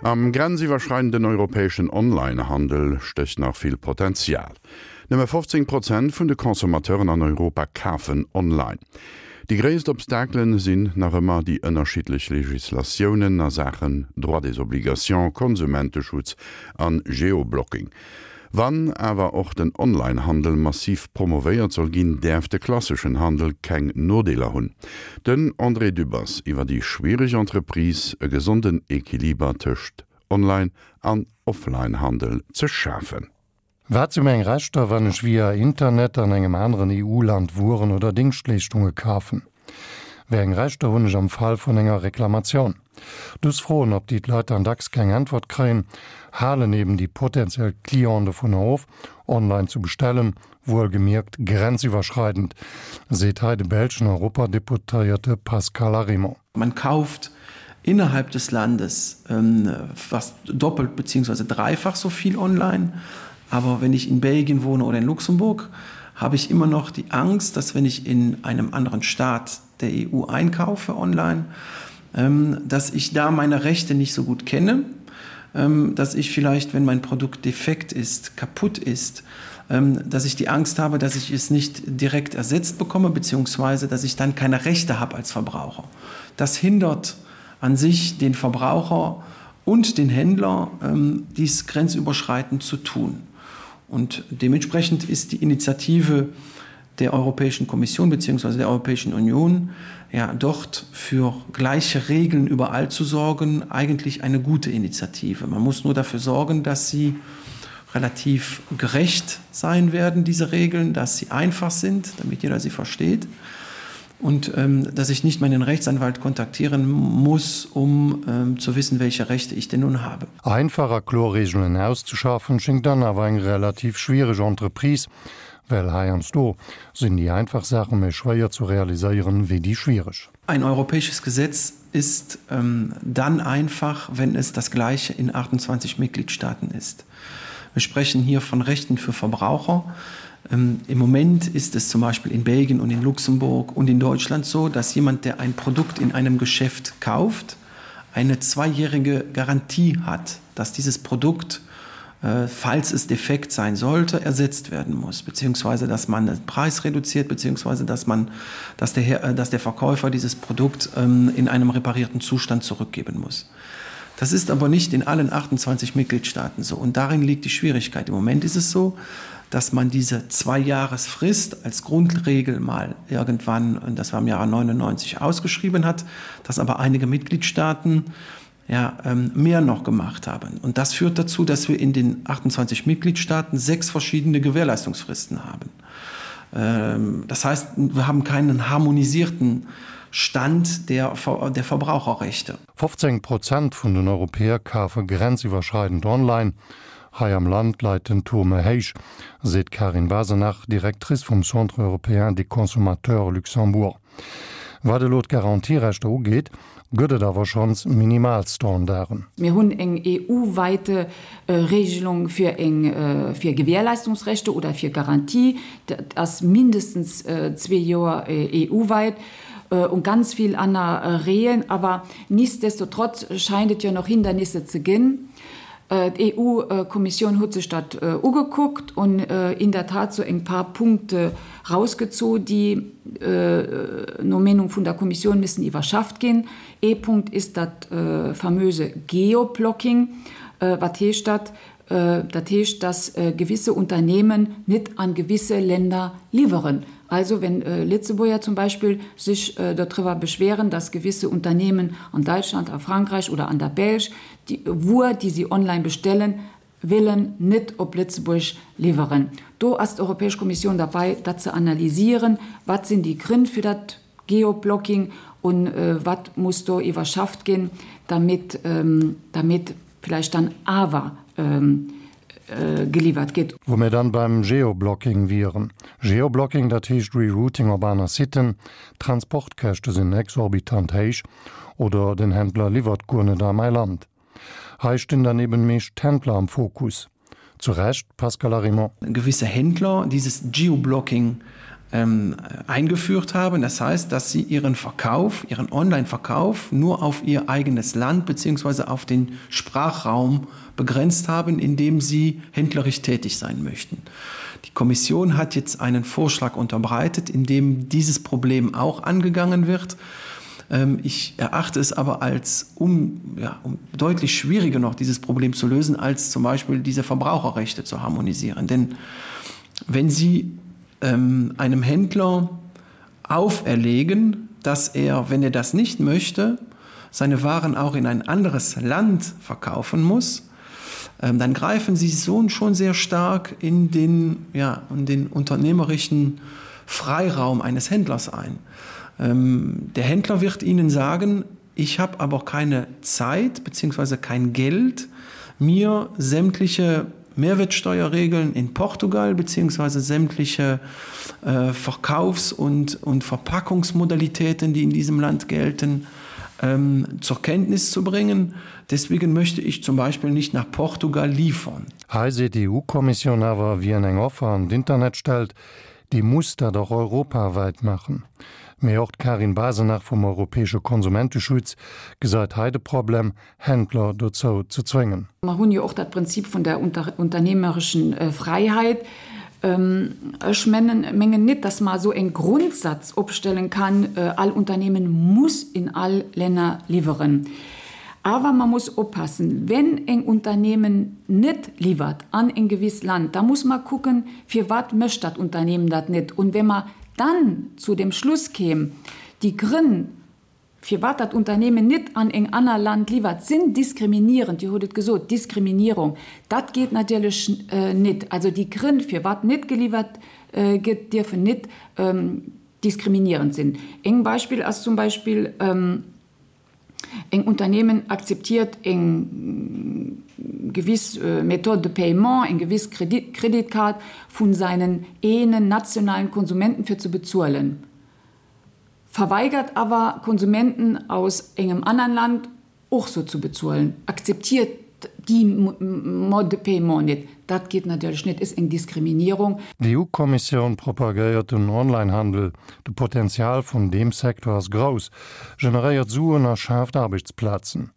Am grenziwwerschreidenden europäeschen Online-Handel stécht nach vill Potenzial. Nëmme 15 Prozent vun de Consommateuren an Europa kafen online. Déi gréisst Obstakelen sinn nach ëmmer déi ënnerschiddlech Legislatiounen a Saachen Droit des obligations, Konsumenteschutz an Geoblocking. Wann awer och den Online-Handel massiv promovéiert soll ginn, däerf de klasseschen Handel keng Nodeeler hunn. Den André Dübbers iwwer déi schwiereg Entreprise, e gesonden Equiliber tëscht Online an Offline-Handel ze schafen. Wat si meng Rechter, wann ech via Internet an engem aneren EU-Land Wueren oder Dingschtleeschtunge kafen? Wéi eng Rechter hunn ech am Fall vun enger Reklamatioun? Dës Froen, op déi d'Leit dann dacks keng Äntwert kréien, halen eben déi potentiell Clienten dovunner of, online zu bestellen, wuelgemierkt grenziwwerschreidend, seet hei de belschen Europadeputéierte Pascal Arimont. Man kauft innerhalb des Landes fast doppelt beziehungsweise dreifach so viel online. Aber wenn ich in Belgien wohne oder in Luxemburg, habe ich immer noch die Angst, dass wenn ich in einem anderen Staat der EU einkaufe online, dass ich da meine Rechte nicht so gut kenne, dass ich vielleicht, wenn mein Produkt defekt ist, kaputt ist, dass ich die Angst habe, dass ich es nicht direkt ersetzt bekomme beziehungsweise dass ich dann keine Rechte habe als Verbraucher. Das hindert an sich den Verbraucher und den Händler, dies grenzüberschreitend zu tun. Und dementsprechend ist die Initiative der Europäischen Kommission bzw. der Europäischen Union ja dort für gleiche Regeln überall zu sorgen, eigentlich eine gute Initiative. Man muss nur dafür sorgen, dass sie relativ gerecht sein werden, diese Regeln, dass sie einfach sind, damit jeder sie versteht und ähm, dass ich nicht meinen Rechtsanwalt kontaktieren muss, um ähm, zu wissen, welche Rechte ich denn nun habe. Einfach a kloer Regeln auszeschaffen, schéngt dann awer eng relativ schwiereg Entreprise, well heiansdo sinn déi einfach Saache méi schwéier zu realiséieren wéi déi schwiereg. Ein europäisches Gesetz ist ähm, dann einfach, wenn es das gleiche in 28 Mitgliedstaaten ist. Wir sprechen hier von Rechten für Verbraucher. Ähm, Im Moment ist es zum Beispiel in Belgien und in Luxemburg und in Deutschland so, dass jemand, der ein Produkt in einem Geschäft kauft, eine zweijährige Garantie hat, dass dieses Produkt, äh, falls es defekt sein sollte, ersetzt werden muss, beziehungsweise dass man den Preis reduziert, beziehungsweise dass, man, dass, der, äh, dass der Verkäufer dieses Produkt ähm, in einem reparierten Zustand zurückgeben muss. Das ist aber nicht in allen 28 Mitgliedstaaten so und darin liegt die Schwierigkeit. Im Moment ist es so, dass man diese Zweijahresfrist als Grundregel mal irgendwann und das war im Jahre 99 ausgeschrieben hat, dass aber einige Mitgliedstaaten ja, ähm, mehr noch gemacht haben. Und das führt dazu, dass wir in den 28 Mitgliedstaaten sechs verschiedene Gewährleistungsfristen haben. Ähm, das heißt, wir haben keinen harmonisierten Stand der, der Verbraucherrechte. 15 Prozent vun den Europäer kafe grenziwwerschreidend online. Hei am Land leit den Taux méi héich, seet d'Karin Basenach, Directrice vum Centre européen des consommateurs Luxembourg. Wat elo d'Garantierechter ugeet, gëtt et awer schonns Minimalstandarden. Mir hunn eng EU-weite Regelung fir eng fir Gewährleistungsrechte oder fir Garantie. Dat ass mindestens zwee Joer EU-weit und ganz vill aner Regeln. Awer nichtsdestotrotz scheint et jo nach Hindernisse ze ginn. D'EU-Kommissioun huet sech dat ugekuckt un in der Tat sou eng paar Punkte rausgezu, déi no Meenung vun der Kommissioun missen iwwerschafft ginn. Ee Punkt ist dat famöse Geoblocking. Wat heescht dat? Dat heescht, dass gewisse Unternehmen net an gewisse Länder liwweren. Also wenn Lëtzebuerger zum Beispill sech dodriwwer beschweren, dass gewisse Unternehmen an Deutschland, a Frankreich oder an der Belsch déi Wuer, déi si online bestellen wëllen, net op Lëtzebuerg liwweren. Do ass d'Europäesch Kommissioun derbei, dat ze analysieren, Wat sinn déi Grënn fir dat Geoblocking und wat muss do iwwerschafft ginn, damit, damit vielleicht dann awer geliwwert gétt. Wou mir dann beim Geoblocking wieren. Geoblocking, dat heescht Rerouting op aner Siten, d'Transportkäschte sinn exorbitant héich oder den Händler liwwert guer net a mäi Land. Hei stinn dann eben meescht d'Händler am Fokus. Zu Recht, Pascal Arimont? Gewisse Händler dieses Geoblocking ähm, eingeführt haben. Das heißt, dass sie ihren Verkauf, ihren Online-Verkauf nur auf ihr eigenes Land bzw. auf den Sprachraum begrenzt haben, in dem sie händlerisch tätig sein möchten. Die Kommission hat jetzt einen Vorschlag unterbreitet, in dem dieses Problem auch angegangen wird. Ähm, ich erachte es aber als um, ja, um deutlich schwieriger noch dieses Problem zu lösen, als zum Beispiel diese Verbraucherrechte zu harmonisieren. Denn wenn Sie ähm, einem Händler auferlegen, dass er, wenn er das nicht möchte, seine Waren auch in ein anderes Land verkaufen muss, ähm, dann greifen sie so schon sehr stark in den, ja, in den unternehmerischen Freiraum eines Händlers ein. Ähm, der Händler wird ihnen sagen, ich habe aber keine Zeit bzw. kein Geld, mir sämtliche Mehrwertsteuerregeln in Portugal bzw. sämtliche äh, Verkaufs- und, und Verpackungsmodalitäten, die in diesem Land gelten, ähm, zur Kenntnis zu bringen. Deswegen möchte ich zum Beispiel nicht nach Portugal liefern. Hei seet d'EU-Kommissioun awer, wien eng Offer an d'Internet stellt, dee muss dat och europawäit maachen. Mee och d'Karin Basenach vum europäesche Konsumenteschutz gesäit hei de Problem, Händler dozou ze zwéngen. Mer hunn jo och dat Prinzip vun der unternehmerischen Freiheit. Ech mengen net, dass mer esou en Grundsatz opstellen kann, all Unternehmen muss in all Länner liwweren. Awer mer muss oppassen, wenn eng Unternehmen net liwwert an en gewisst Land, da muss mer kucken, firwat mécht dat Unternehmen dat net. Und wenn mer dann zu dem Schluss kéim, déi Grënn, firwat dat Unternehmen net an eng aner Land liwwert, sinn diskriminierend, Dir hutt et gesot, Diskriminierung, dat geet natierlech net. Also déi Grënn, firwat net geliwwert gëtt, dierfen net diskriminierend sinn. Eng Beispill ass zum Beispill, Eng Unternehmen akzeptiert eng gewiss Méthode de paiement, eng gewiss Kreditkaart vun seinen eenen nationalen Konsumenten fir ze bezuelen. Verweigert awer Konsumenten aus engem anern Land och sou zu bezuelen, akzeptiert déi Mode de paiement net. Dat geet natierlech net, is eng Diskriminierung. D'EU-Kommissioun propagéiert den Online-Handel. De Potenzial vun deem Secteur ass grouss, generéiert Suen a schaaft Aarbechtsplazen.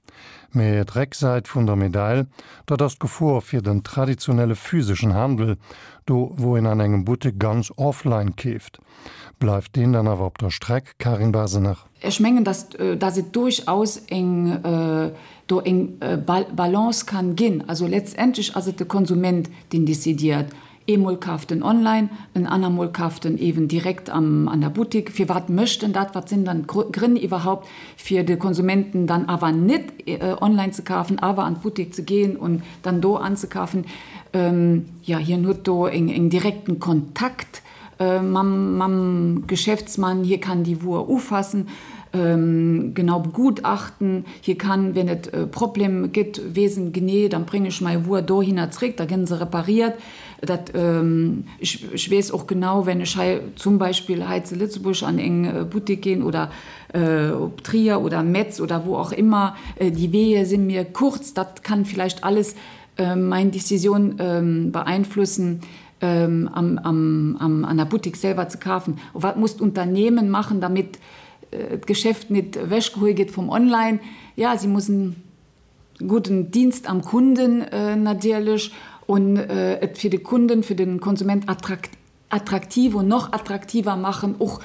Mee d'Récksäit vun der Medail, dat ass d'Gefor fir den traditionelle physeschen Handel, do wou een an engem Buttek ganz offline keeft. Bleift deen dann awer op der Streck, Karin Basenach? Ech mengen, dass, dass et durchaus eng, do eng Balance kann ginn. Also letztendlech ass et de Konsument, deen décidiert. Eemol kaaft en online, en anermol kaaft en eeben direkt am, an der Buttik. Firwat mécht en dat? Wat sinn dann d'Grënn iwwerhaupt, fir de Konsumenten dann awer net online ze kafen, awer an d'Buttik ze gehen und dann do anzekafen? Jo, hien huet do eng, eng direkten Kontakt mam, mam Geschäftsmann, hie kann déi Wuer ufassen, genau begutachten, hie kann, wenn et e Problem gëtt, weess en genee, dann bréng ech mei Wuer dohinner zréck, da gënn se repariert. Dat, ech, ech weess och genau, wenn ech hei zum Beispill hei zu Lëtzebuerg an eng Buttek ginn oder op Trier oder Metz oder wou och immer, déi Weeë si mir kurz, dat kann vielleicht alles mein Décisioun beeinflussen. am, am, am, an der Buttik selwer ze kafen? Wat muss d'Unternehmen machen, damit d'Geschäft net ewechgehuel gëtt vum Online? Ja, si mussen gudden Dienst am Kunden natierlech und et fir de Kunden, fir de Konsument attraktiv und noch attraktiver machen, och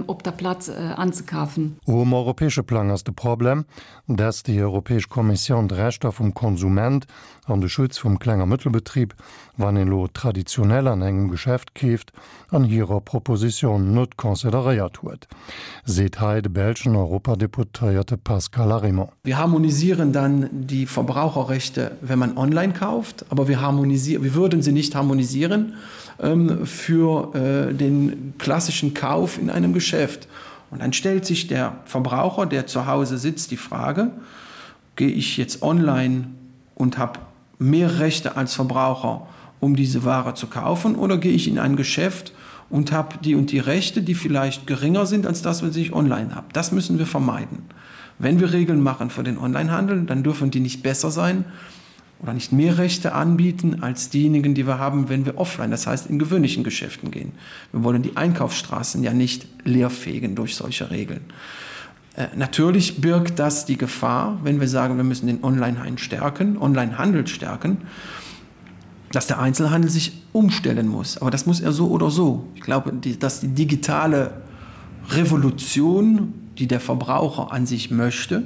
op der Plaz anzekafen. Um europäesche Plang ass de Problem, dass déi Europäesch Kommissioun d'Rechter vum Konsument an de Schutz vum Kleng a Mëttelbetrib, wann een elo traditionell an engem Geschäft keeft, an hirer Proposition net consideréiert huet, seet hei de belschen Europadeputéierte Pascal Arimont. Wir harmonisieren dann die Verbraucherrechte, wenn man online kauft, aber wir harmonisieren, wir würden sie nicht harmonisieren ähm, für äh, den klassischen Kauf in einem Geschäft. Und dann stellt sich der Verbraucher, der zu Hause sitzt, die Frage: Gehe ich jetzt online und habe mehr Rechte als Verbraucher, um diese Ware zu kaufen, oder gehe ich in ein Geschäft und habe die und die Rechte, die vielleicht geringer sind als das, was ich online habe. Das müssen wir vermeiden. Wenn wir Regeln machen für den Onlinehandel, dann dürfen die nicht besser sein. oder nicht mehr Rechte anbieten als diejenigen, die wir haben, wenn wir offline, das heißt in gewöhnlichen Geschäften gehen. Wir wollen die Einkaufsstraßen ja nicht leerfegen durch solche Regeln. Äh, natürlich birgt das die Gefahr, wenn wir sagen, wir müssen den Onlinehandel stärken, Onlinehandel stärken, dass der Einzelhandel sich umstellen muss. Aber das muss er so oder so. Ich glaube, die, dass die digitale Revolution, die der Verbraucher an sich möchte,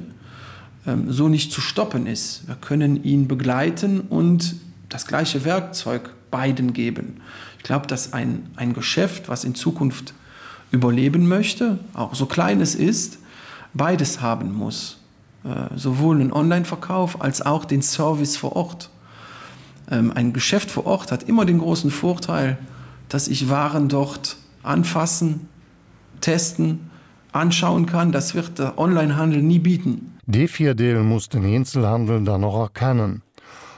ähm, so nicht zu stoppen ist. Wir können ihn begleiten und das gleiche Werkzeug beiden geben. Ich glaube, dass ein, ein Geschäft, was in Zukunft überleben möchte, auch so klein es ist, beides haben muss. Äh, sowohl einen Online-Verkauf als auch den Service vor Ort. Ähm, ein Geschäft vor Ort hat immer den großen Vorteil, dass ich Waren dort anfassen, testen, anschauen kann. Das wird der Onlinehandel nie bieten. Dee Virdeel muss den Eenzelhandel dann och erkennen.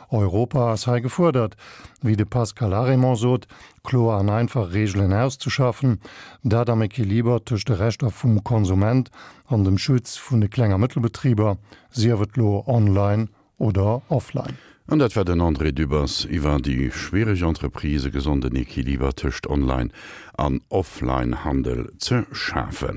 Europa ass hei gefuerdert, wéi de Pascal Arimont sot, kloer an einfach Reegelen auszeschaffen, dat am Equiliber tëscht de Rechter vum Konsument an dem Schutz vun de Kleng a Mëttelbetriber, sief et lo online oder offline. An dat war den André Dübbers iwwer déi schwiereg Entreprise e gesonden Equiliber tëscht Online an Offline-Handel ze schafen.